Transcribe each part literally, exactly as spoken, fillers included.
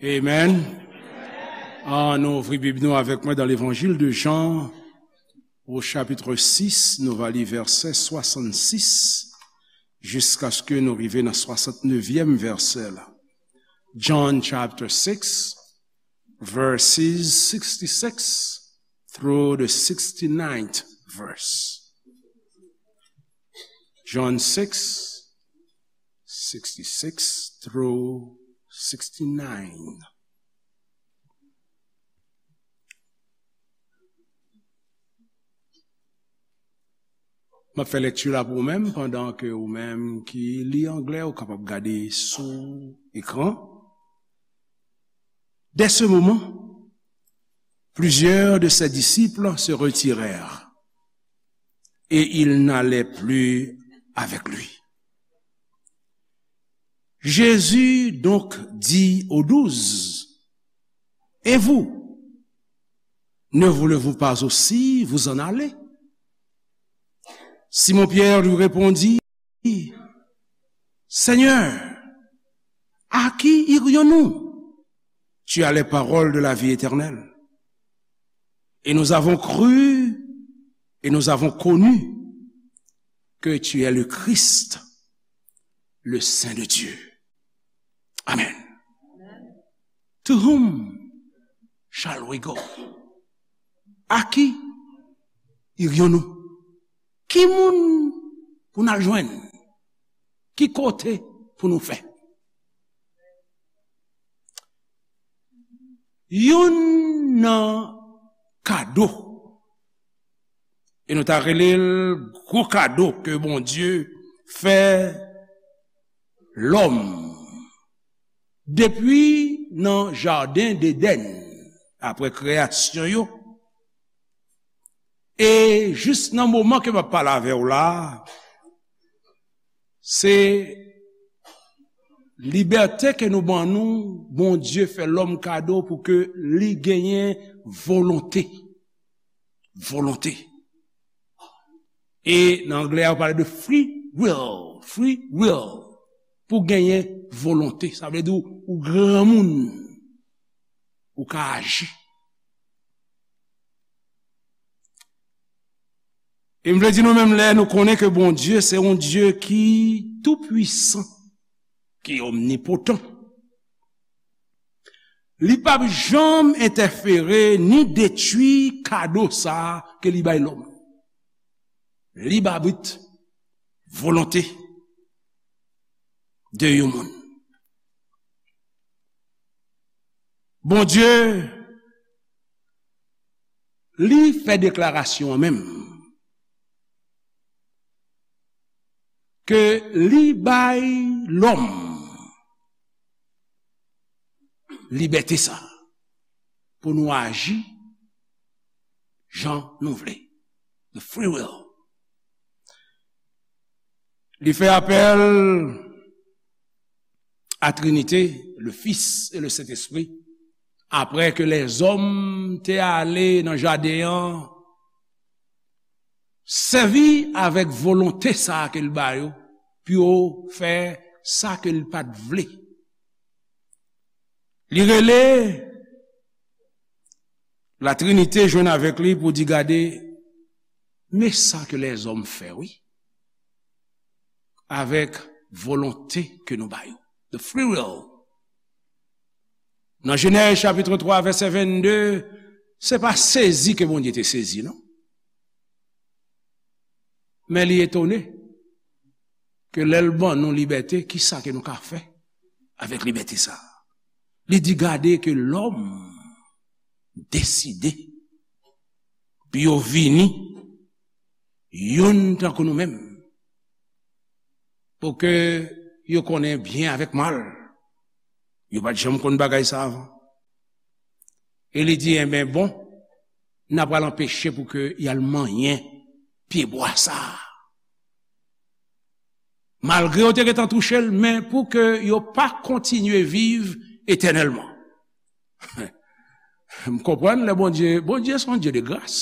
Amen. Ann ouvri Bib nou avèk mwen dans l'Évangile de Jean, au chapitre six, nou va li vèsè swasannsis jiskaske nou rive nan swasantnevyèm vèsè la. John chapter six, verses sixty-six through the sixty-ninth verse. John six, sixty-six through sixty-nine. M ap fè lèkti la pou ou menm, pandan ke ou menm ki li anglè, ou kapab gade sou ekran. Dès ce moment, plusieurs de ses disciples se retirèrent, et ils n'allaient plus avec lui. Jésus donc dit aux douze, et vous, ne voulez-vous pas aussi vous en aller ? Simon-Pierre lui répondit, Seigneur, à qui irions-nous ? Tu as les paroles de la vie éternelle. Et nous avons cru et nous avons connu que tu es le Christ, le Saint de Dieu. Amen. To whom shall we go? À qui irions-nous? Ki moun pou n al jwenn? Ki kote pou nou fè? Youn nan kado, e nou ta rele l gwo kado ke Bondye fè lòm depi nan jaden Edenn, apre kreyasyon yo, e jis nan moman ke m ap pale avè w la, se libète ke nou ban nou, Bondye fè lòm kado pou ke li genyen volonte. Volonte. E nan anglè, yo pale de free will. Free will. Pou genyen volonte. Sa vle di ou, ou granmoun. Ou ka aji. E m vle di nou menm lè nou konnen ke Bondye se yon Dye ki tou pwisan, ki omnipotan. Li p ap janm entèfere ni detwi kado sa a ke li bay lòm. Lib abit, volonte de yon moun. Bondye, li fè deklarasyon an menm ke li bay lòm libète sa pou nou aji jan nou vle. The free will. Li fè apèl a Trinite, le Fils et le Saint-Esprit, apre ke lèzòm te ale nan jaden an, sèvi avèk volonte sa a ke l ba yo, pou yo fè sa ke l pa t vle. Li rele Latrinite jwenn avèk li pou di, gade, men sa ke lèzòm fè, wi, avèk volonte ke nou ba yo. The free will. Nan Jenèz chapit twa, vèsè vennde, se pa sezi ke Bondye te sezi, non. Men li etone ke lè l ban nou libète, ki sa ke nou ka fè avèk libète sa a? Li di, gade ke lòm deside pou yo vini youn tankou nou menm, pou ke yo konnen byen avèk mal. Yo pa t janm konn bagay sa avan. E li di, enben, bon, n a pral anpeche pou ke y al manyen pyebwa sa a. Malgre yo te gentan touche l, men pou ke yo pa kontinye viv etènèlman. M konprann lè Bondye, Bondye se yon Dye de gras.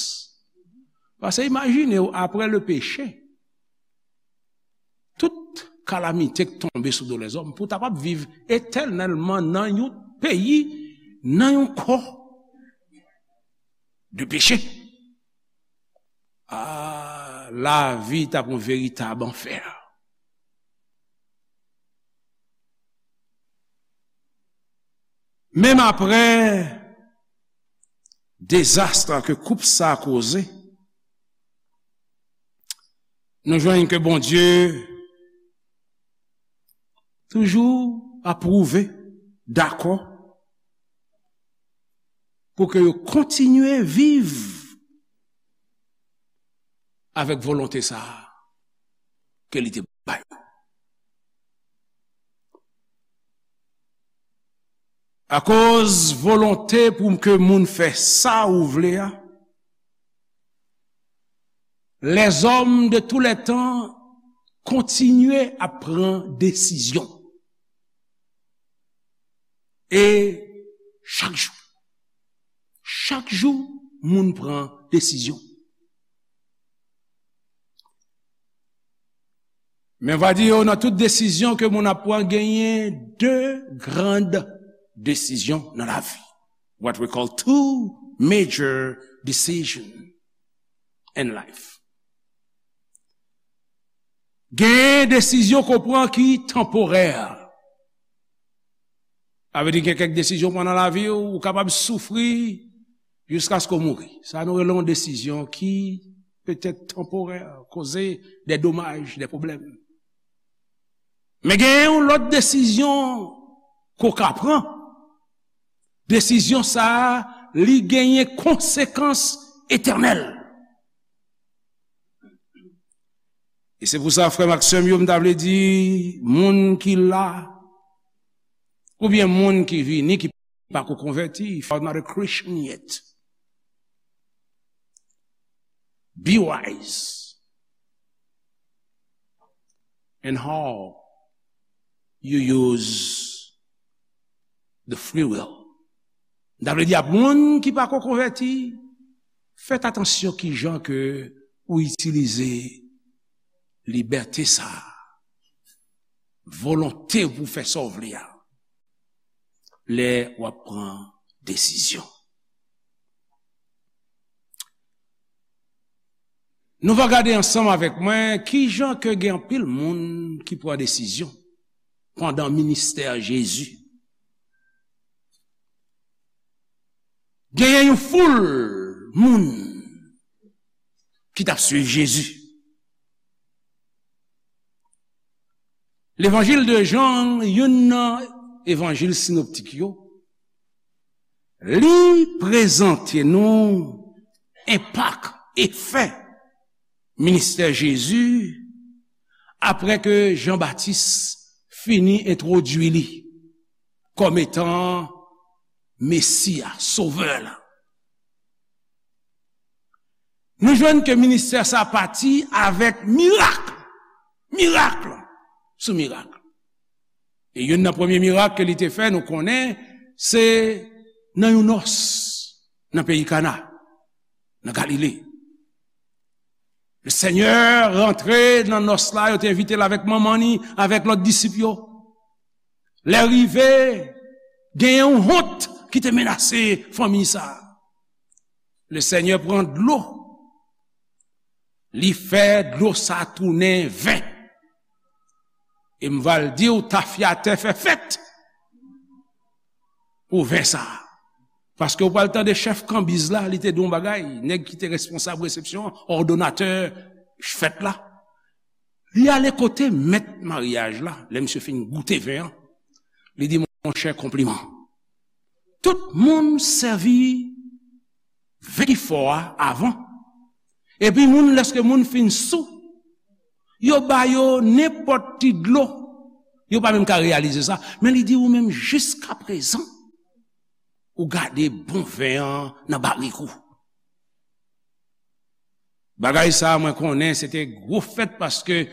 Paske imajine w, apre le peche, tout kalamite k tonbe sou do lèzòm, pou w ta p ap viv etènèlman nan yon peyi nan yon kò de peche. Ah, lavi t ap yon veritab anfè. Menm apre dezas ke koup sa a koze, nou jwenn ke Bondye toujou apwouve, dakò, pou ke yo kontinye viv avèk volonte sa a ke li te ba yo. Akoz volonte pou ke moun fè sa ou vle a, lèzòm de tou lè tan kontinye ap pran desizyon. E chak jou, chak jou, moun pran desizyon. Men va di yo, nan tout desizyon ke moun ap pran, genyen de grand desizyon nan lavi. What we call two major decision in life. Genyen desizyon ke w pran ki tanporè. Sa vle di gen kèk desizyon w pran nan lavi w, ou kapab soufri jiskaske w mouri. Sa nou rele yon desizyon ki petèt tanporè, koze de domaj, de pwoblèm. Men genyen yon lòt desizyon ke w ka pran. Desizyon sa a, li genyen konsekans etènèl. E se pou sa, frè m ak sè m yo, m ta vle di, moun ki la, oubyen moun ki vini, ki pako konvèti, if you are not a Christian yet, be wise in how you use the free will. M ta vle di ak moun ki pako konvèti, fèt atansyon kijan ke ou itilize libète sa a, volonte pou fè sa w vle a, lè w ap pran desizyon. Nou va gade ansanm avèk mwen kijan ke gen anpil moun ki pran desizyon pandan ministè Jezi. Genyen yon foul moun ki t ap swiv Jezi. Levanjil de Jan, youn nan evanjil sinoptik yo, li prezante nou enpak, efè ministè Jezi apre ke Jan Batis fini entwodui li kòm etan Mesi a, Sovè la. Nou jwenn ke ministè sa pati avèk mirak, mirak sou mirak. E youn nan premye mirak ke li te fè, nou konnen, se nan yon nòs nan peyi Kana, nan Galile. Le Senyè rantre nan nòs la, yo te envite l avèk manman ni, avèk lòt disip yo. Lè rive, gen yon wont ki te menase fanmi sa a. Le Senyè pran dlo, li fè dlo sa a tounen ven. E m va l di w, tafyatè fè fèt pou ven sa a. Paske w pral tande chèf kanbiz la, li te di yon bagay, nèg ki te responsab resepsyon an, òdonatè fèt la. Li ale kote mèt maryaj la, lè misye fin goute ven an, li di, monchè, konpliman. Tout moun sèvi ven ki fò a avan. Epi moun, lèske moun fin sou, yo ba yo nenpòt ti dlo. Yo pa menm ka reyalize sa. Men li di ou menm, jiskaprezan, ou gade bon ven an nan barik ou. Bagay sa a, mwen konnen se te gwo fèt, paske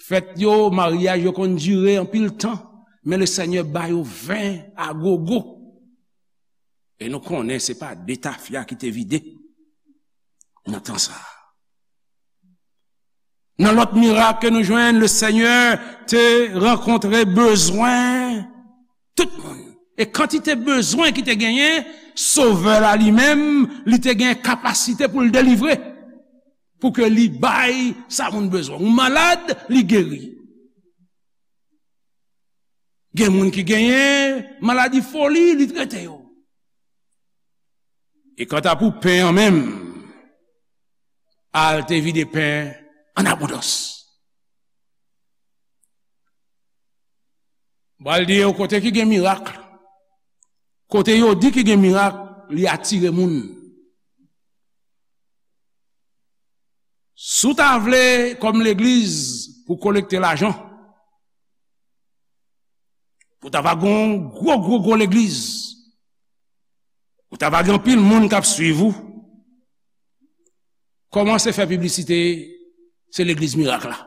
fèt yo, maryaj yo konn dire anpil tan, men le Senyè ba yo ven a gogo. E nou konnen se pa de tafya ki te vide nan tan sa a. Nan lòt mirak ke nou jwenn, le Senyè te rankontre bezwen tout moun. E kantite bezwen ki te genyen, Sovè la li menm, li te gen kapasite pou l delivre. Pou ke li bay sa moun bezwen. Ou malad, li geri. Gen moun ki genyen maladi foli, li trete yo. E kanta pou pen an menm, al te vide pen an abondans. M pral di yo kote ki gen mirak, kote yo di ki gen mirak, li atire moun. Si w ta vle, kòm legliz, pou kolekte lajan, pou ta va gen yon gwo, gwo, gwo legliz, pou ta va gen anpil moun k ap swiv ou, kòmanse fè piblisite, se legliz mirak la.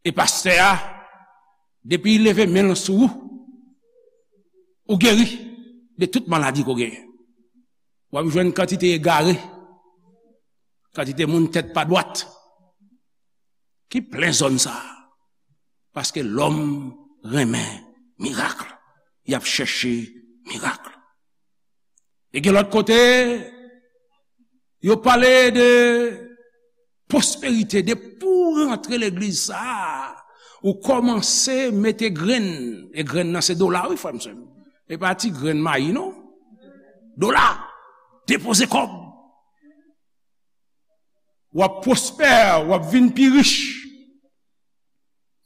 E pastè a, depi l leve men l sou ou, ou geri de tout maladi ke w genyen. W ap jwenn kantite egare, kantite moun tèt pa dwat, ki plen zòn sa a. Paske lòm renmen mirak. Y ap chèche mirak. E gen lòt kote, yo pale de pwosperite, depi w rantre legliz sa a, ou kòmanse mete grenn, e grenn nan se dola, wi, frè m, sè m. E pa ti grenn mayi, non. Dola, depoze kòb. W ap pwospè, w ap vin pi rich.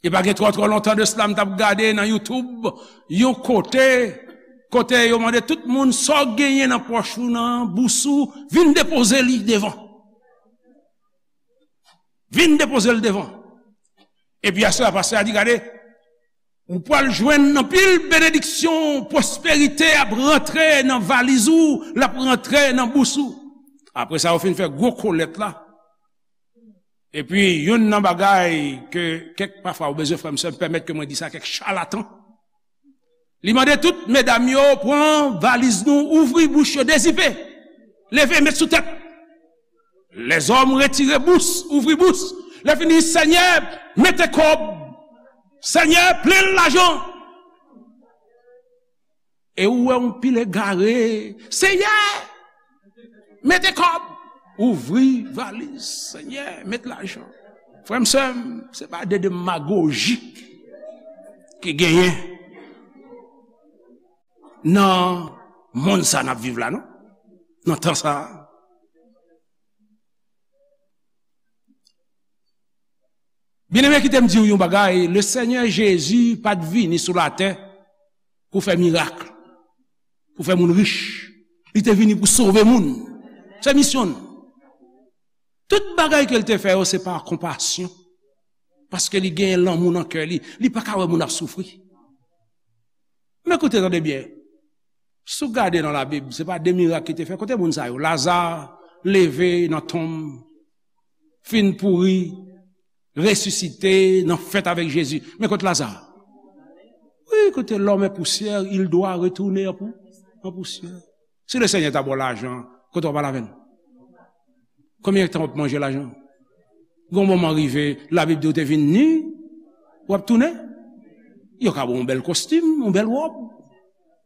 E pa gen twò, twò lontan de sila, m t ap gade nan YouTube, yon kote, kote yo mande tout moun, sa w genyen nan pòch ou, nan bous ou, vin depoze li devan. Vin depoze l devan. Epi aswè a, pastè a di, gade, ou pral jwenn anpil benediksyon, pwosperite ap rantre nan valiz ou, l ap rantre nan bous ou. Apre sa, yo fin fè gwo kolèt la. Epi, youn nan bagay ke kèk pafwa ou bezwen, frè m, sè m, pèmèt ke mwen di sa, kèk chalatan. Li mande tout medam yo, pran valiz nou, ouvri bouch yo, dezipe. Leve, met sou tèt. Lèzòm retire bous, ouvri bous. Lè fini, Senyè, mete kòb. Senyè, plen l lajan. E ou wè yon pil egare. Senyè, mete kòb. Ouvri valiz. Senyè, met lajan. Frè m, sè m, se pa de demagoji ki genyen nan monn sa n ap viv la, non? Nan tan sa a. Byeneme, kite m di w yon bagay, le Senyè Jezi pa t vini sou latè pou fè mirak, pou fè moun rich. Li te vini pou sove moun. Se misyon l. Tout bagay ke l te fè yo, se pa konpasyon. Paske li genyen lanmou nan kè li. Li pa ka wè moun ap soufri. Men koute, tande byen. Si w gade nan Labib, se pa de mirak ki te fè. Kote moun sa yo? Laza leve nan tonm, fin pouri, resisite, nan fèt avèk Jezi. Men kote Laza? Wi, kote l'homme est poussière, il doit retourner en pou-, en poussière. Si le Senyè ta ba w lajan, kote w ap al avè l? Konbyen tan w ap manje lajan? Gon moman rive, Labib di w te vin ni, w ap tounen. Yo ka ba w yon bèl kostim, yon bèl wòb.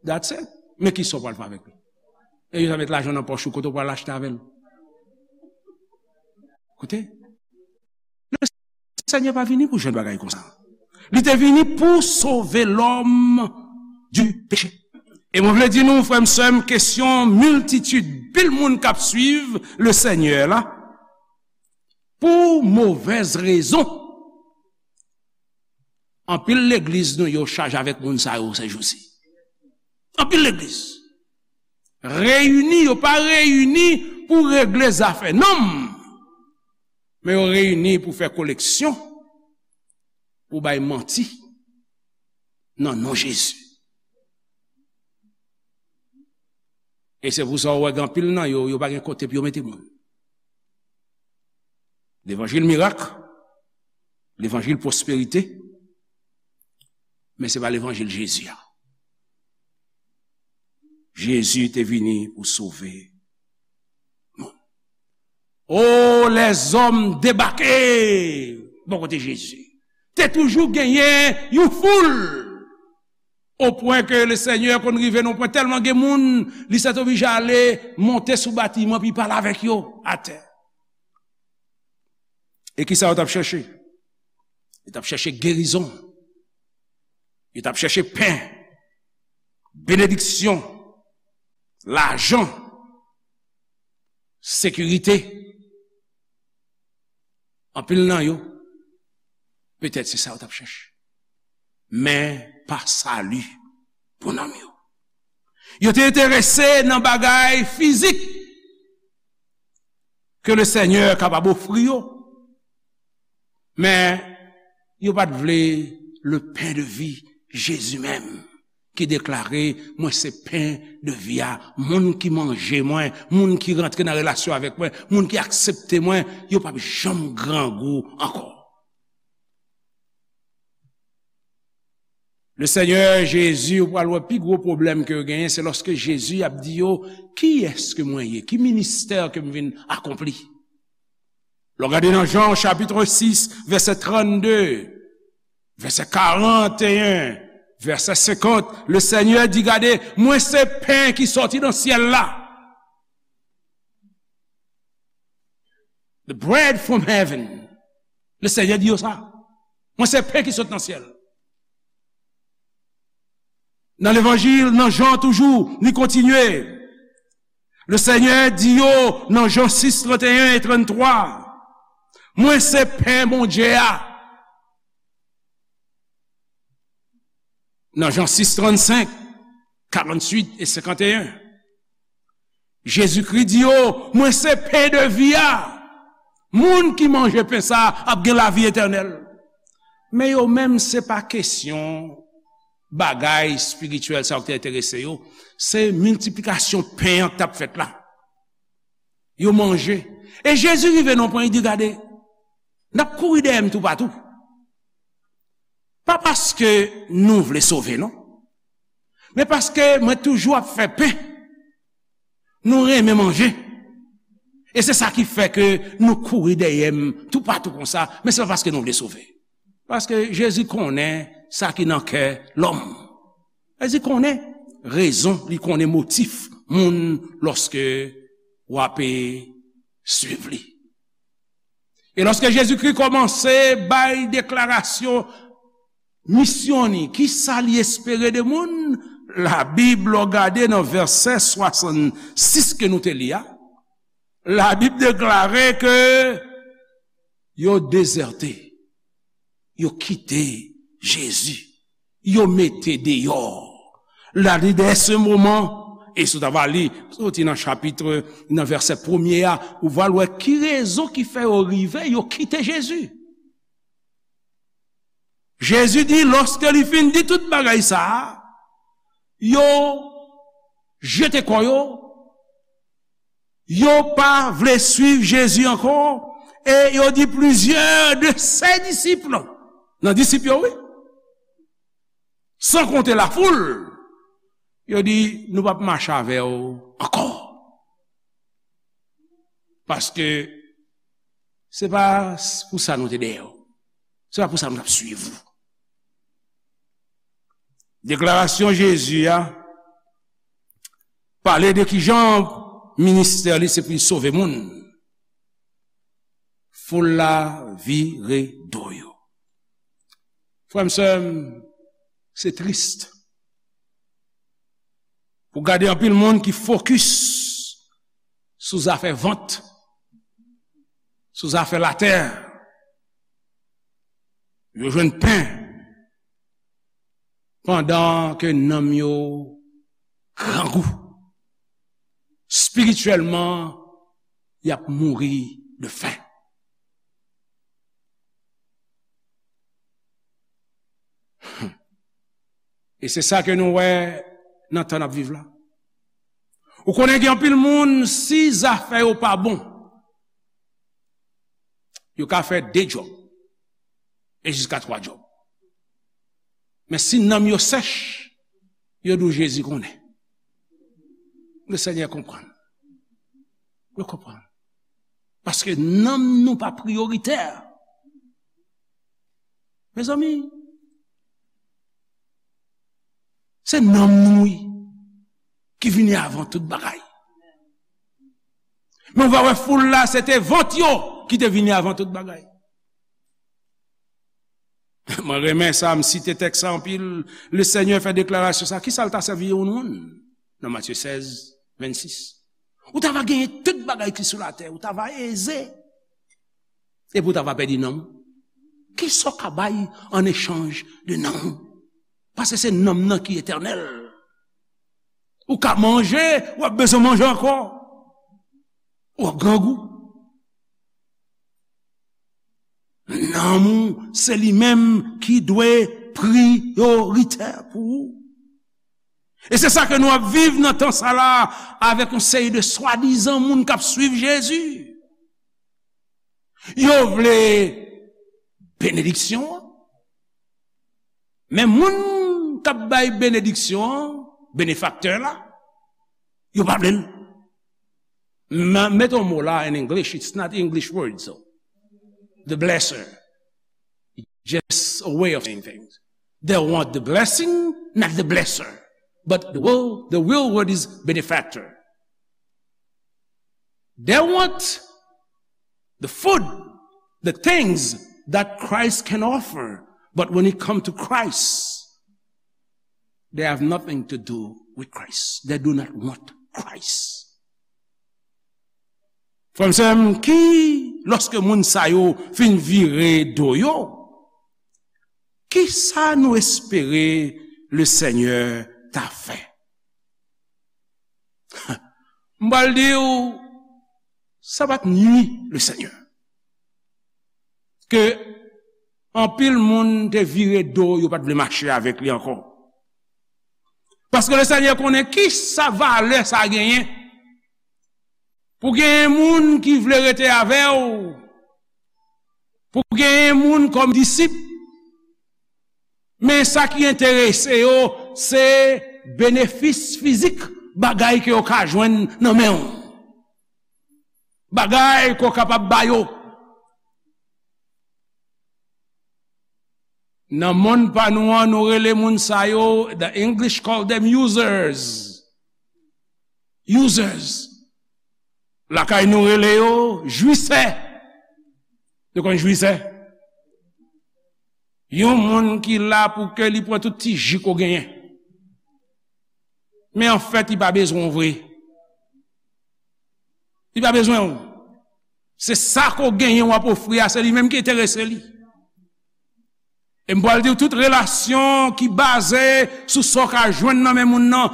That's it. Men kisa w pral fè avèk li? E yo ta met lajan nan pòch ou, kote w pral achte avè l? Kote? Le Senyè pa vini pou jwenn bagay konsa. Li te vini pou sove lòm di peche. E mwen vle di nou, frè m, sè m, kesyon miltitid, pil moun k ap swiv le Senyè la, pou movèz rezon. Anpil legliz nou yo chaje avèk moun sa yo sèjousi. Anpil legliz. Reyini, yo pa reyini pou regle zafè nonm. Men yo reyini pou fè koleksyon, pou bay manti nan non Jezi. E se pou sa w wè gen anpil nan yo, yo pa gen kote pou yo mete moun. Levanjil mirak, levanjil pwosperite, men se pa levanjil Jezi a. Jezi te vini pou sove moun. O, lèzòm debake bò kote Jezi. Te toujou genyen yon foul. O pwen ke le Senyè konn rive nan pwen tèlman gen moun, li sètoblije ale monte sou batiman, pi pale avèk yo atè. E kisa yo t ap chèche? Yo t ap chèche gerizon. Yo t ap chèche pen, benediksyon, lajan, sekirite. Anpil nan yo, petèt se sa yo t ap chèche. Men pa sali pou nanm yo. Yo te enterese nan bagay fizik ke le Senyè kapab ofri yo. Men yo pa t vle le pen de vi, Jezi menm, ki deklare, "Mwen se pen de vi a, moun ki manje mwen, moun ki rantre nan relasyon avèk mwen, moun ki aksepte mwen, yo p ap janm grangou ankò." Le Senyè Jezi, ou pral wè pi gwo pwoblèm ke yo genyen, se lòske Jezi ap di yo, "Kiyès ke mwen ye? Ki ministè ke m vin akonpli?" Lè w gade nan Jan chapit sis, vèsè trannde, vèsè karanteyen, vèsè senkant, le Senyè di, "Gade, mwen se pen ki sòti nan syèl la." The bread from heaven. Le Senyè di yo sa. "Mwen se pen ki sot nan syèl." Nan levanjil, nan Jan toujou, li kontinye. Le Senyè di yo nan Jan sis, trannteyen e tranntwa, "Mwen se pen Bondye a." Nan Jan sis, trannsenk, karantuit e senkanteyen, Jezikri di yo, "Mwen se pen de vi a. Moun ki manje pen sa a ap gen lavi etènèl." Men yo menm, se pa kesyon bagay espirityèl sa yo ki te enterese yo, se miltiplikasyon pen an k t ap fèt la. Yo manje. E Jezi rive nan pwen, li di, "Gade, n ap kouri dèyè m toupatou. Pa paske nou vle sove, non. Men paske mwen toujou ap fè pen. Nou renmen manje. E se sa ki fè ke nou kouri dèyè m toupatou konsa, men se pa paske nou vle sove." Paske Jezi konnen sa ki nan kè lòm. Jezi konnen rezon, li konnen motif moun lòske w ape swiv li. E lòske Jezikri kòmanse bay deklarasyon misyon ni, kisa li espere de moun, Labib, lè w gade nan vèsè swasannsis ke nou te li a, Labib deklare ke yo dezète, yo kite Jezi, yo mete deyò. La li dèyè se moman, e si w ta va li, soti nan chapit, nan vèsè premye a, ou va wè ki rezon ki fè yo rive, yo kite Jezi. Jezi di, lòske li fin di tout bagay sa a, yo jete kò yo, yo pa vle swiv Jezi ankò, e yo di plizyè de se disip, nan disip yo, wi, san konte lafoul, yo di, "Nou p ap mache avè w ankò. Paske se pa pou sa nou te dèyè w. Se pa pou sa nou t ap swiv ou." Deklarasyon Jezi a pale de kijan ministè li se pou l sove moun. Foul la vire do yo. Frè m, sè m, se tris pou gade anpil moun ki fokis sou zafè vant, sou zafè latè. Yo jwenn pen pandan ke nanm yo grangou. Espirityèlman, y ap mouri de fen. E se sa ke nou wè nan tan n ap viv la. Ou konnen gen anpil moun, si zafè yo pa bon, yo ka fè de djòb, e jiska twa djòb. Men si nanm yo sèch, yo di w Jezi konnen. Le Senyè konprann. Yo konprann. Paske nanm nou pa priyoritè. Mezanmi, Se nanm nou, wi, ki vini avan tout bagay. Men w va wè foul la, se te vant yo ki te vini avan tout bagay. Mwen renmen sa, m site tèks sa anpil. Le Senyè fè deklarasyon sa. Kisa l ta sèvi yon moun? Nan Matye sèz, vennsis. Ou ta va genyen tout bagay ki sou latè, ou ta va eze. Epi w ta va pèdi nanm ou. Kisa w ka bay an echanj de nanm ou? Paske se nanm nan ki etènèl. Ou ka manje, w ap bezwen manje ankò. W ap grangou. Nanm ou, se li menm ki dwe priyoritè pou ou. E se sa ke nou ap viv nan tan sa la, avèk yon seri de swadizan moun k ap swiv Jezi. Yo vle benediksyon an, men moun k ap bay benediksyon an, benefaktè la, yo pa vle l. M- Mete yon mo la in English, it's not English word, so. The blesser. Just a way of saying things. They want the blessing, not the blesser. But the real, the real word is benefactor. They want the food, the things that Christ can offer. But when it comes to Christ, they have nothing to do with Christ. They do not want Christ. Frè m, sè m, ki, lòske moun sa yo fin vire do yo, ki sa nou espere le Senyè ta fè? M pral di w, sa pa t nui le Senyè. Ke anpil moun te vire do, yo pa t vle mache avèk li ankò. Paske le Senyè konnen ki sa valè sa genyen. Pou genyen moun ki vle rete avè w, pou genyen moun kòm disip, men sa ki enterese yo, se benefis fizik, bagay ke yo ka jwenn nan men w. Bagay ke w kapab ba yo. Nan monn pa nou an, nou rele moun sa yo, the English call them users. Users. Lakay nou rele yo jwisè. Nou konn jwisè? Yon moun ki la pou ke li pran tout ti ji ke w genyen. Men anfèt, li pa bezwen w vre. Li pa bezwen w. Se sa ke w genyen w ap ofri a, se li menm ki enterese li. E m pral di w, tout relasyon ki baze sou sa w ka jwenn nan men moun nan,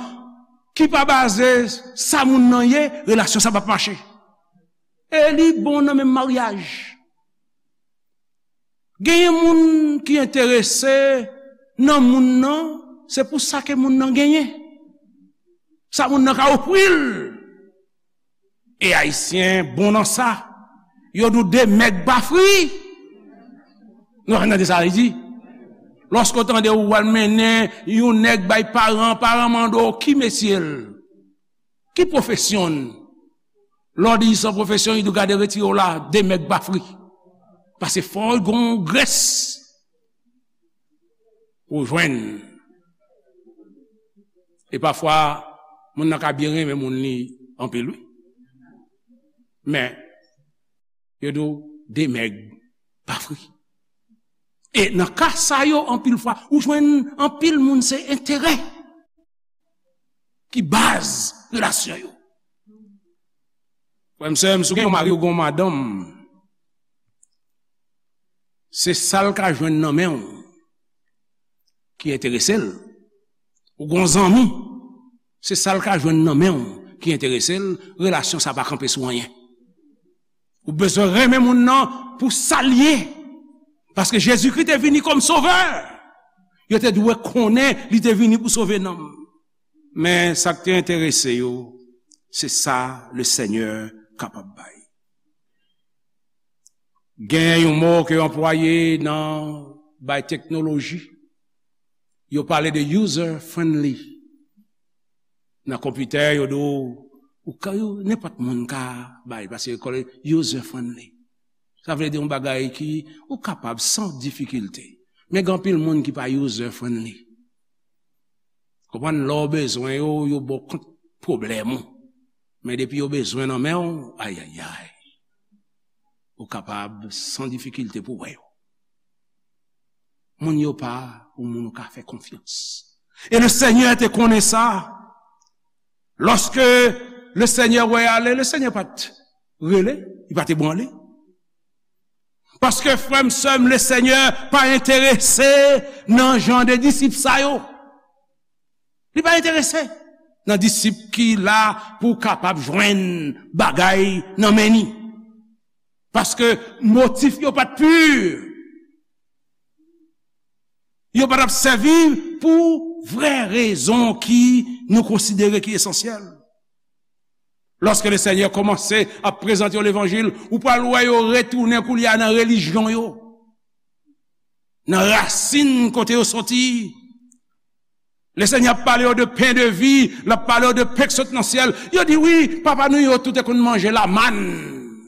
ki pa baze sa moun nan ye, relasyon sa p ap mache. E li bon nan menm maryaj. Genyen moun ki enterese nan moun nan, se pou sa ke moun nan genyen. Sa moun nan ka ofri l. E Ayisyen bon nan sa. Yo di w de mèg pa fri. Nou pa tande sa li di? Lòske w tande ou al mennen yon nèg bay paran, paran mande w ki metye l, ki pwofesyon l. Lè w di sa pwofesyon, li di w gade retire w la, de mèg pa fri. Paske fò w gon grès pou w jwenn. E pafwa, moun nan ka byen renmen moun li anpil, wi. Men, yo di w de mèg pa fri. E nan ka sa yo, anpil fwa, ou jwenn anpil moun se enterè ki baz relasyon yo. Frè m, sè m, si w gen yon mari ou gen yon madanm, se sa l ka jwenn nan men w ki enterese l. Ou gen yon zanmi, se sa l ka jwenn nan men w ki enterese l, relasyon sa pa kanpe sou anyen. Ou bezwen renmen moun nan pou sa l ye. Paske Jezikri te vini kòm sovè. Yo te dwe konnen li te vini pou sove nanm. Men sa k te enterese yo, se sa le Senyè kapab bay. Gen yon mo ke yo anplwaye nan bay teknoloji. Yo pale de user friendly. Nan konpitè, yo di w, ou ka, yo, nenpòt moun ka bay, paske yo kole user friendly. Sa vle di yon bagay ki ou kapab san difikilte. Men gen anpil moun ki pa user friendly. Konprann, lè w bezwen yo, yo ba w kont pwoblèm ou. Men depi yo bezwen nan men w, ayayay, ou kapab san difikilte pou w wè yo. Moun yo pa yon moun ou ka fè konfyans. E Lesenyè te konnen sa. Lòske Lesenyè wè y ale, Lesenyè pa t rele, li pa t ebranle. Paske, frè m, sè m, Lesenyè pa enterese nan jan de disip sa yo. Li pa enterese nan disip ki la pou kapab jwenn bagay nan men ni. Paske motif yo pa t pi. Yo pa t ap sèvi pou vrè rezon ki nou konsidere ki esansyèl. Lòske Lesenyè kòmanse ap prezante yo levanjil, ou pral wè yo retounen koulye a nan relijyon yo, nan rasin kote yo soti. Lesenyè ap pale yo de pen de vi, l ap pale yo de pen k sot nan syèl. Yo di, "Wi, papa nou yo tout te konn manje lamann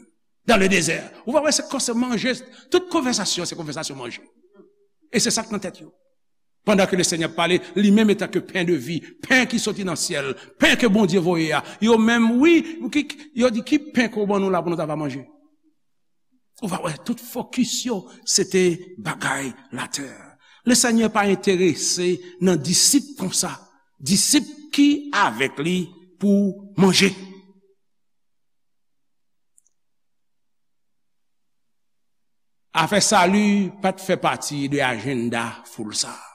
dans le désert." Ou va wè, se kòse manje, tout konvèsasyon, se konvèsasyon manje. E se sa k nan tèt yo. Pandan ke Lesenyè ap pale, li menm etanke pen de vi, pen ki soti nan syèl, pen ke Bondye voye a, yo menm, wi, ki, yo di, "Ki pen ke w ban nou la pou nou ta va manje?" Ou va wè, tout fokis yo, se te bagay latè. Lesenyè pa enterese nan disip konsa, disip ki avèk li pou manje. Afè sali pa t fè pati de ajanda foul sa a.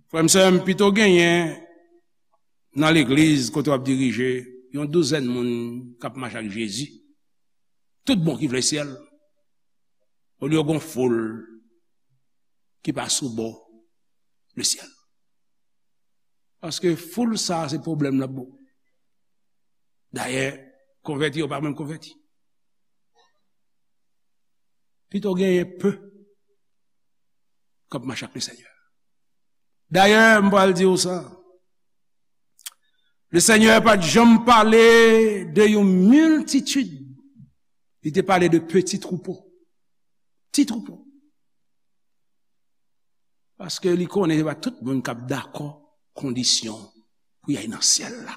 Frè m, sè m, pito genyen nan legliz kote w ap dirije yon douzèn moun k ap mache ak Jezi, tout bon, ki vle syèl, olye w gen yon foul ki pa sou bò lesyèl. Paske foul sa a se pwoblèm l ap ba w. Dayè, konvèti yo pa menm konvèti. Pito genyen pe k ap mache ak Lesenyè. Dayè, m pral di w sa. Lesenyè pa t janm pale de yon miltitid. Li te pale de peti twoupo. Ti twoupo. Paske li konnen se pa tout moun k ap dakò kondisyon pou y al nan syèl la.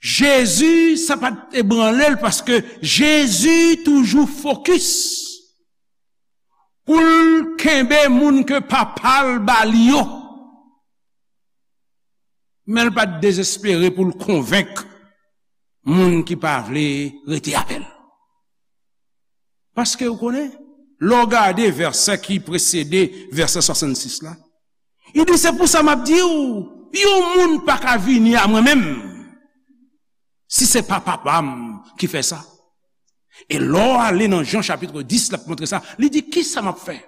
Jezi, sa pa t ebranle l, paske Jezi toujou fokis pou l kenbe moun ke Papa l ba li yo. Men l pa t dezespere pou l konvenk moun ki pa vle rete avè l. Paske, ou konnen, lè w gade vèsè ki presede vèsè swasannsis la, li di, "Se pou sa m ap di w, yon moun pa ka vini a mwen menm, si se pa Papa m ki fè sa." E lè w ale nan Jan chapit dis, l ap montre sa, li di, "Kisa m ap fè?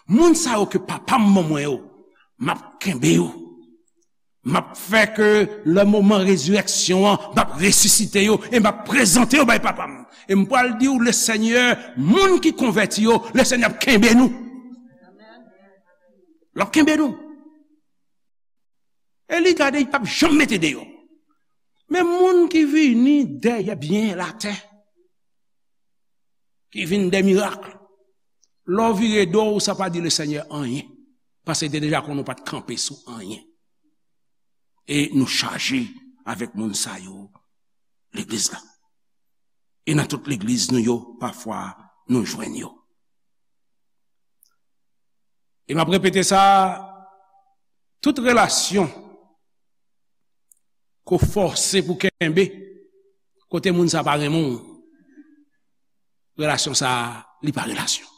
Moun sa yo ke Papa m ban mwen yo, m ap kenbe yo." M ap fè ke lè moman rezirèksyon an, m ap resisite yo e m ap prezante yo bay Papa m. E m pral di w, Lesenyè, moun ki konvèti yo, Lesenyè ap kenbe nou. L ap kenbe nou. E li gade, li p ap janm mete deyò. Men moun ki vini dèyè byen latè, ki vin dè mirak. Lè w vire do w, sa pa di Lesenyè anyen. Paske li te deja konnen w pa t kanpe sou anyen. E nou chaje avèk moun sa yo, legliz la. E nan tout legliz nou yo, pafwa, nou jwenn yo. E m ap repete sa, tout relasyon ke w fòse pou kenbe, kote moun sa pa renmen w, relasyon sa, li pa relasyon.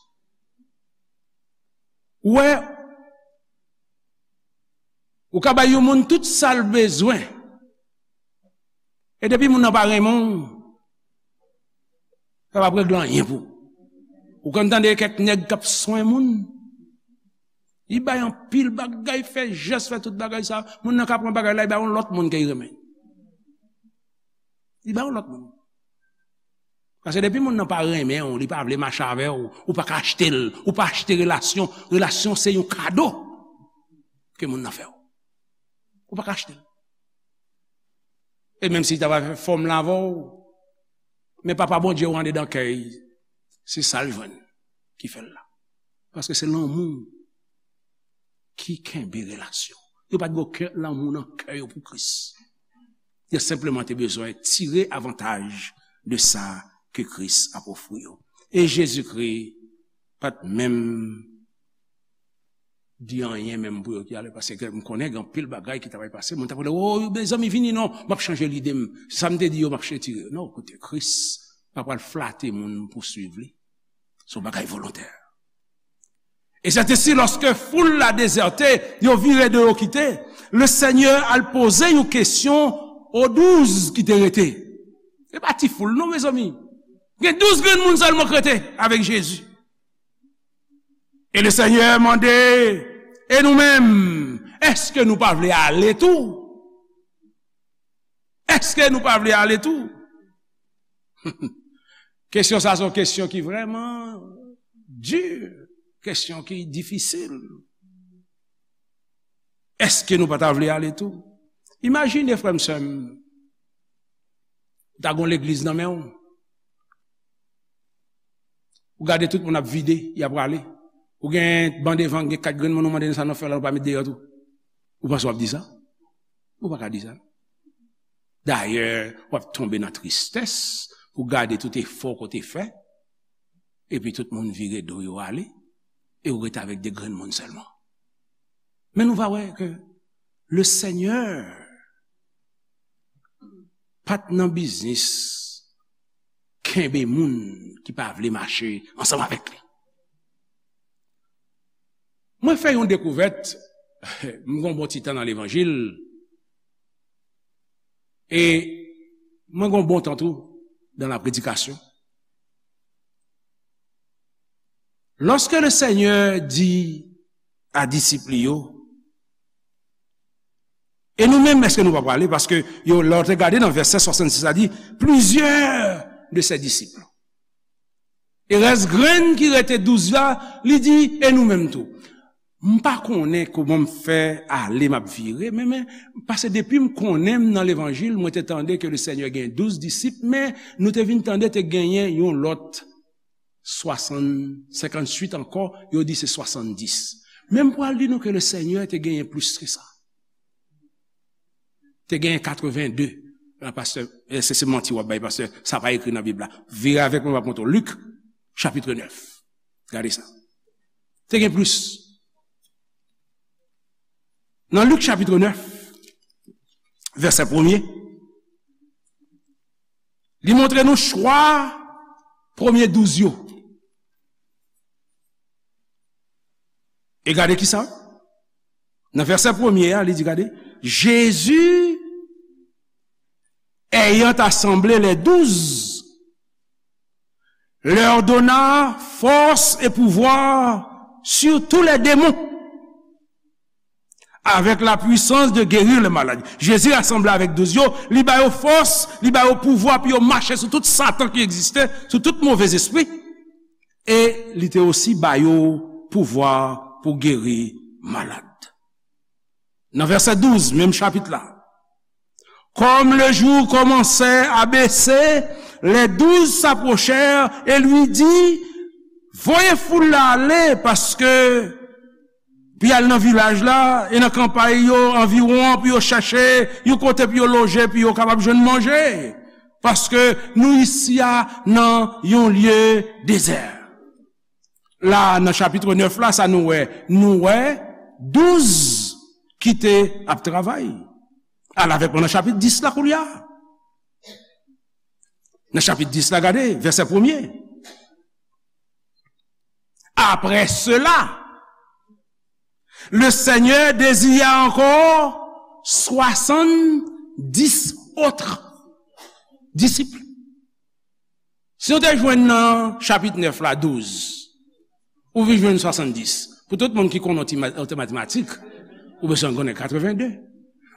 Ou wè, ou ka bay yon moun tout sa l bezwen, e depi moun nan pa renmen w, sa p ap regle anyen pou ou. Ou konn tande kèk nèg k ap swen moun, li bay anpil bagay, fè jès, fè tout bagay sa, moun nan ka pran bagay la, li bay yon lòt moun ke li renmen. Li bay yon lòt moun. Paske depi moun nan pa renmen w, li pa vle mache avè w, ou pa ka achte l, ou pa achte relasyon. Relasyon se yon kado ke moun nan fè w. Ou pa ka achte l. E menm si li ta va fè fòmil avè w, men Papa Bondye w andedan kè l, se sa l jwenn ki fè l la. Paske se lanmou ki kenbe relasyon. Yo pa t gen okenn lanmou nan kè yo pou Kris. Yo senpleman te bezwen tire avantaj de sa ke Kris ap ofri yo. E Jezikri pa t menm di anyen menm pou yo ki ale, paske m konnen gen anpil bagay ki ta pral pase. Moun ta pral, "O, mezanmi, vini non, m ap chanje lide m. Sa m te di yo, m ap retire." Non, koute, Kris pa pral flate moun pou swiv li. Se yon bagay volontè. Et c'est ainsi, lorsque foule la déserté, yo vire do yo kite, le Senyè al poze yon kesyon o douz ki te rete. E pa ti foul non, mezanmi. Gen douz grenn moun sèlman k rete avèk Jezi. E le Senyè mande, "E nou menm, èske nou pa vle ale tou? Èske nou pa vle ale tou?" Kesyon sa se yon kesyon ki vrèman di, kesyon ki difisil. Èske nou pa ta vle ale tou? Imajine, frè m, sè m, ou ta gen yon legliz nan men w. Ou gade tout moun ap vide, y ap prale. Ou gen ban devan, gen kat grenn moun, ou mande, "Sa nou fè la, nou pa met deyò tou?" Ou panse w ap di sa? Ou pa ka di sa. Dayè, w ap tonbe nan tristès pou gade tout efò ke w te fè, epi tout moun vire do yo ale, e ou rete avèk de grenn moun sèlman. Men nou va wè ke le Senyè pa t nan biznis kenbe moun ki pa vle mache ansanm avèk li. Mwen fè yon dekouvèt, m gen yon bon ti tan nan levanjil, e mwen gen yon bon tan tou dans la prédication. Lorsque le Seigneur dit à disip li yo, "E nou menm, èske nou pa prale?" Paske yo, lè w te gade nan vèsè swasannsis la, di, "Plusieurs de ses disciples." E rès grenn ki rete douz la, li di, "E nou menm tou?" M pa konnen kòman m fè ale, m ap vire, men, men, paske depi m konnen m nan levanjil, mwen te tande ke le Senyè gen douz disip, men nou te vin tande te genyen yon lòt swasann, senkantuit ankò, yo di se swasanndis. Men m pral di nou ke le Senyè te genyen plis ke sa. Te genyen katreven de. La, pastè, eh, se, se manti w ap bay, pastè. Sa pa ekri nan Bib la. Vire avèk mwen, m ap montre w. Lik, chapit nèf. Gade sa. Te gen plis. Nan Lik, chapit nèf, vèsè premye, li montre nou chwa premye douz yo. E gade ki sa? Nan vèsè premye a, li di, gade, Jésus, ayant assemblé les douze, leur donna force et pouvoir sur tous les démons, avec la puissance de guérir les malades. Jezi rasanble avèk douz yo, li ba yo fòs, li ba yo pouvwa pou yo mache sou tout Satan ki egziste, sou tout movèzespri. E li te osi ba yo pouvwa pou geri malad. Nan vèsè douz, menm chapit la. Comme le jour commençait à baisser, les douze s'approchèrent et lui dit, voye foul la ale, paske pou y al nan vilaj la e nan kanpay yo anviwon an, pou yo chèche yon kote pou yo loje, pou yo kapab jwenn manje. Paske nou isi a nan yon lye dezè. La, nan chapit nèf la, sa nou wè? Nou wè douz ki te ap travay. Al avèk mwen nan chapit dis la koulye a. Nan chapit dis la, gade, vèsè premye. Après cela, le Seigneur désigna encore soixante-dix autres disciples. Si w te jwenn nan chapit nèf la, douz, ou vin jwenn swasanndis. Pou tout moun ki konnen ti ma-, ti matematik, ou bezwen konnen katreven de.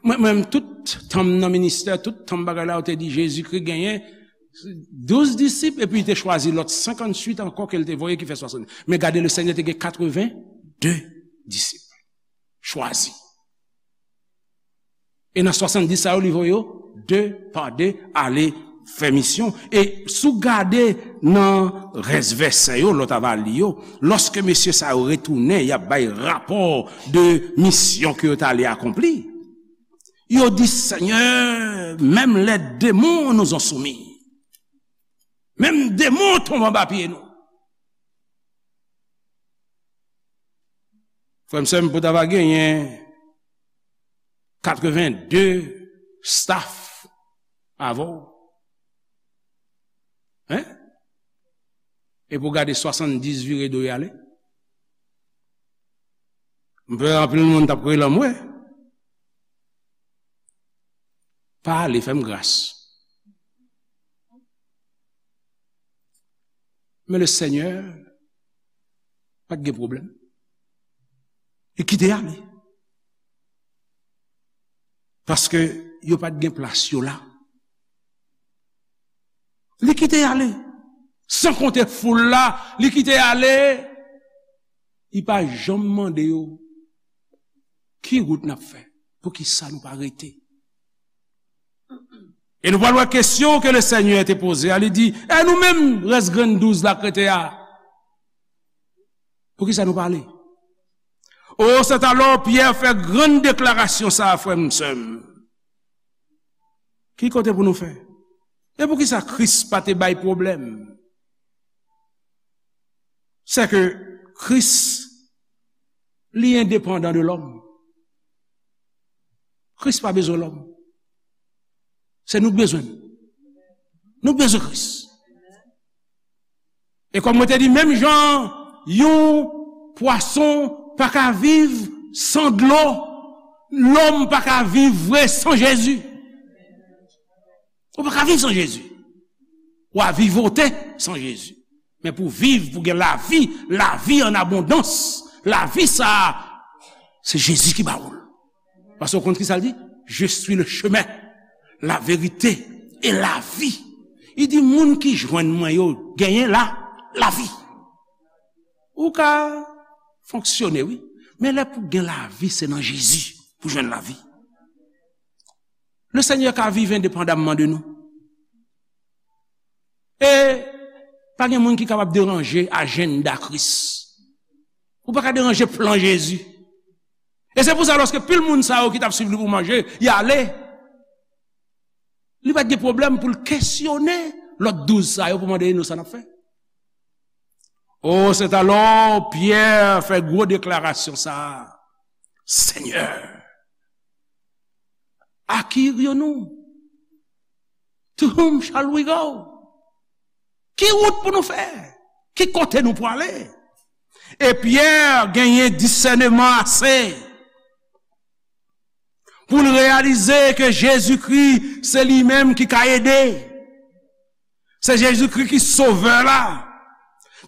Mwen, mwen, tout tan m nan ministè, tout tan m bagay la, ou te di Jezikri genyen douz disip, epi li te chwazi lòt senkantuit ankò ke l te voye, ki fè swasanndis. Men gade, le Senyè te gen katreven de disip chwazi. E nan swasanndis sa yo, li voye yo de pa de ale fè misyon. E si w gade nan rès vèsè yo, lè w ta va li yo, lòske mesye sa yo retounen, y ap bay rapò de misyon ke yo t ale akonpli. Yo di, Seigneur, même les démons nous ont soumis. Menm demon tonbe anba pye nou. Frè m, sè m, pou ta va genyen katreven de staff avè w. Hein? E pou gade swasanndiz vire do y ale. M pè anpil moun t ap rele m, wè. Pa ale, fè m gras. Men le Seigneur pa t gen pwoblèm. Li kite ale. Paske yo pa t gen plas yo la. Li kite ale. San konte foul la, li kite ale. Li pa janm mande yo, ki wout n ap fè? Poukisa nou pa rete? E nou pral wè kesyon ke le Seigneur te poze a. Li di, e nou menm, rès grenn douz la k rete a? Poukisa nou pa ale? O, c'est alors Pierre fè grann deklarasyon sa a, frè m, sè m. Ki kote pou nou fè? E poukisa Kris pa te bay pwoblèm? C'est que Kris, li endepandan de lòm. Kris pa bezwen lòm. Se nou k bezwen l. Nou k bezwen Kris. E kòm mwen te di, menm jan yon pwason pa ka viv san dlo, lòm pa ka viv vre san Jezi. Ou pa ka viv san Jezi. W a vivote san Jezi. Men pou viv, pou gen lavi, lavi an abondans, lavi sa a, se Jezi ki ba ou l. Paske w konn ki sa l di? Je suis le chemin, la vérité et la vie. Li di, moun ki jwenn mwen yo genyen la, lavi. Ou ka fonksyone, wi. Men lè pou gen lavi, se nan Jezi pou jwenn lavi. Le Seigneur ka viv endepandamman de nou. E pa gen moun ki kapab deranje ajanda Kris. Ou pa ka deranje plan Jezi. E se pou sa, lòske pil moun sa yo ki t ap swiv li pou manje, y ale, li pa t gen pwoblèm pou l kesyone lòt douz sa yo pou mande nou sa n ap fè. Oh, c'est alors Pierre fè gwo deklarasyon sa a. Seigneur, à qui irions-nous? To whom shall we go? Ki wout pou nou fè? Ki kote nou pou ale? E Pyè genyen disèneman ase pou l reyalize ke Jezikri se li menm ki ka ede. Se Jezikri ki Sovè la.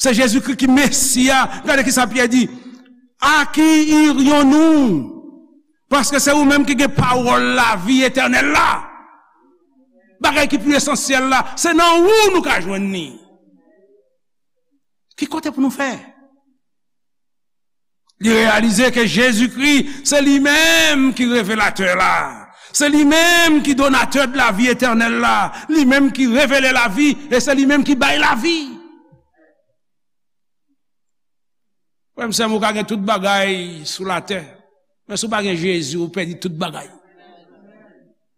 Se Jezikri ki Mesi a. Gade kisa Pyè di, à qui irions-nous? Paske se ou menm ki gen pawòl lavi etènèl la. Bagay ki pi esansyèl la, se nan ou nou ka jwenn li. Ki kote pou nou fè? Li reyalize ke Jezikri, se li menm ki revelatè la. Se li menm ki donatè de lavi etènèl la. Li menm ki revele lavi, e se li menm ki bay lavi. Frè m, sè m, ou ka gen tout bagay sou latè, men si w pa gen Jezi, ou pèdi tout bagay.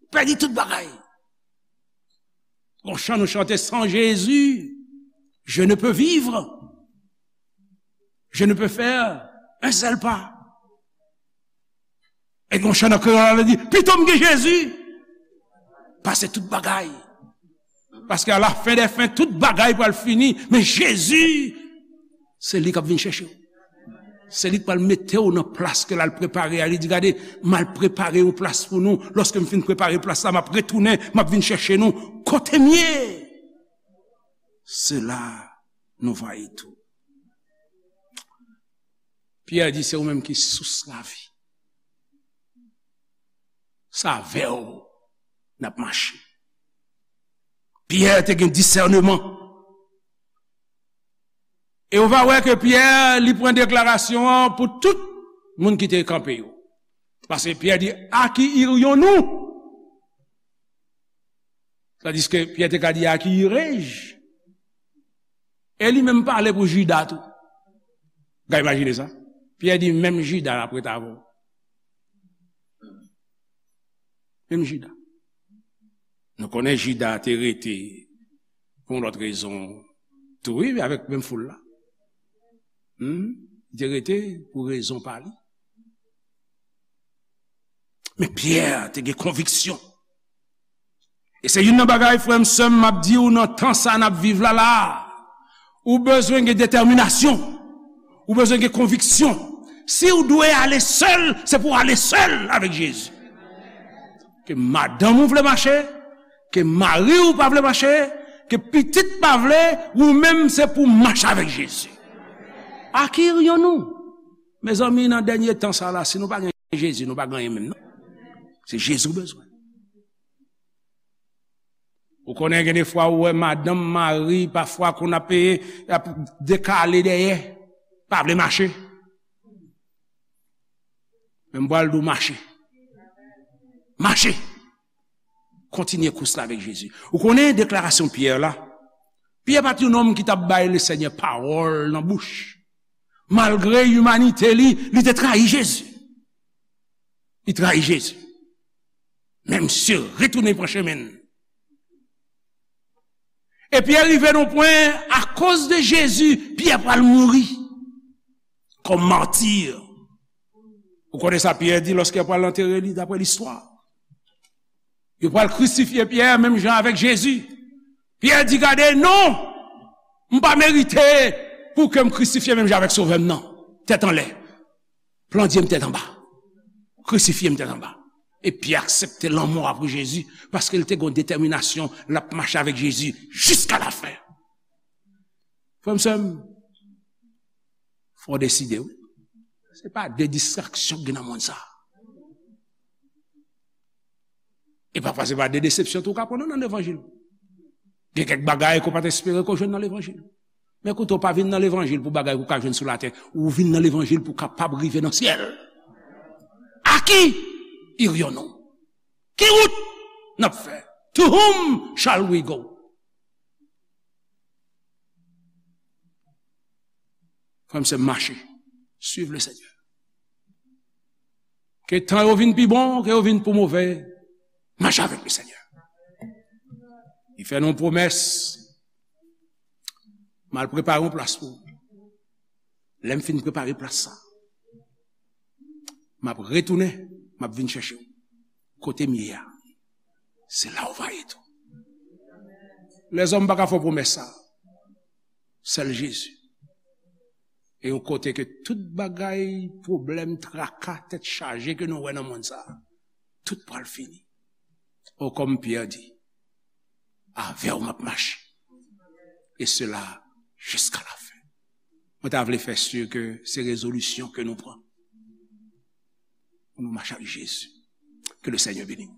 Ou pèdi tout bagay. Gon chan nou chante, sans Jésus, je ne peux vivre. Je ne peux faire un seul pas. E gon chan nan kreyòl la di, pito m gen Jezi pase tout bagay. Paske a la fen dè fen, tout bagay pral fini, men Jezi, se li k ap vin chèche w. Se li k pral mete w nan plas ke l al prepare a. Li di, gade, m al prepare yon plas pou nou. Lòske m fin prepare plas la, m ap retounen, m ap vin chèche nou. Kote m ye? Se la nou va ye tou. Pyè di, se ou menm ki sous lavi. Se avè w n ap mache. Pyè te gen disèneman. E ou va wè ke Pyè, li pran deklarasyon an pou tout moun ki te kanpe yo. Paske Pyè di, à qui irions-nous? Tandiske Pyè te ka di, "À qui irai-je?" E li menm pale pou Jida tou. Gade, imajine sa. Pyè di, "Menm Jida l ap ret avè w." Menm Jida. Nou konnen Jida te rete pou yon lòt rezon tou, wi, men avèk menm foul la. Hmm? Li te rete pou rezon pa li. Men Pyè te gen konviksyon. E se youn nan bagay, frè m, sè m, m ap di w nan tan sa n ap viv la, la. Ou bezwen gen detèminasyon. Ou bezwen gen konviksyon. Si w dwe ale sèl, se pou w ale sèl avèk Jezi. Ke madanm ou vle mache, ke mari w pa vle mache, ke pitit pa vle, ou menm se pou w mache avèk Jezi. À qui irions-nous? Mezanmi, nan dènye tan sa la, si nou pa gen Jezi, nou pa gen anyen menm, non. Se Jezi w bezwen. Ou konnen gen de fwa ou wè madanm, mari, pafwa konn ap, ap dekale dèyè, pa vle mache. Men m pral di w mache. Mache. Kontinye kous la avèk Jezi. Ou konnen deklarasyon Pyè la? Pyè pa t yon nonm ki t ap bay Lesenyè pawòl nan bouch. Malgre imanite li, li te trayi Jezi. Li trayi Jezi. Men misye retounen pran chemen l. E Pyè rive nan pwen, akoz de Jezi, Pyè pral mouri kòm mati. Ou konnen sa Pyè di lòske yo pral antere li, daprè listwa? Yo pral krisifye Pyè menm jan avèk Jezi. Pyè di, "Gade, non! M pa merite pou ke m krisifye menm jan avèk Sovè m nan. Tèt anlè. Plandye m tèt anba. Krisifye m tèt anba." E Pyè aksepte lanmò a pou Jezi, paske l te gen yon detèminasyon, l ap mache avèk Jezi jiska lafen. Frè m, sè m, fò w deside, wi. Se pa de distraksyon ki gen nan mond sa. E pafwa se pa de desepsyon tou w ka pran non nan levanjil. Gen kèk bagay ke w pa t espere ke w jwenn nan levanjil. Men koute, w pa vin nan levanjil pou bagay ke w ka jwenn sou latè. Ou vin nan levanjil pou w kapab rive nan syèl. À qui irions-nous? Ki wout n ap fè? To whom shall we go? Frè m, sè m, mache. Suiv le Seigneur. Ke tan yo vin pi bon, ke yo vin pou move, mache avèk le Seigneur. Li fè nou yon pwomès. M al prepare yon plas pou ou. Lè m fin prepare plas sa, m ap retounen, m ap vin chèche w. Kote m ye a, se la w va ye tou. Lèzòm pa ka fè w pwomès sa. Sèl Jezi. E yon kote ke tout bagay, pwoblèm, traka, tèt chaje ke nou wè nan mond sa, tout pral fini. O, kòm Pyè di, avè w m ap mache. E sela jiska lafen. Mwen ta vle fè si ke se rezolisyon ke nou pran pou nou mache ak Jezi. Ke le Seigneur bénisse.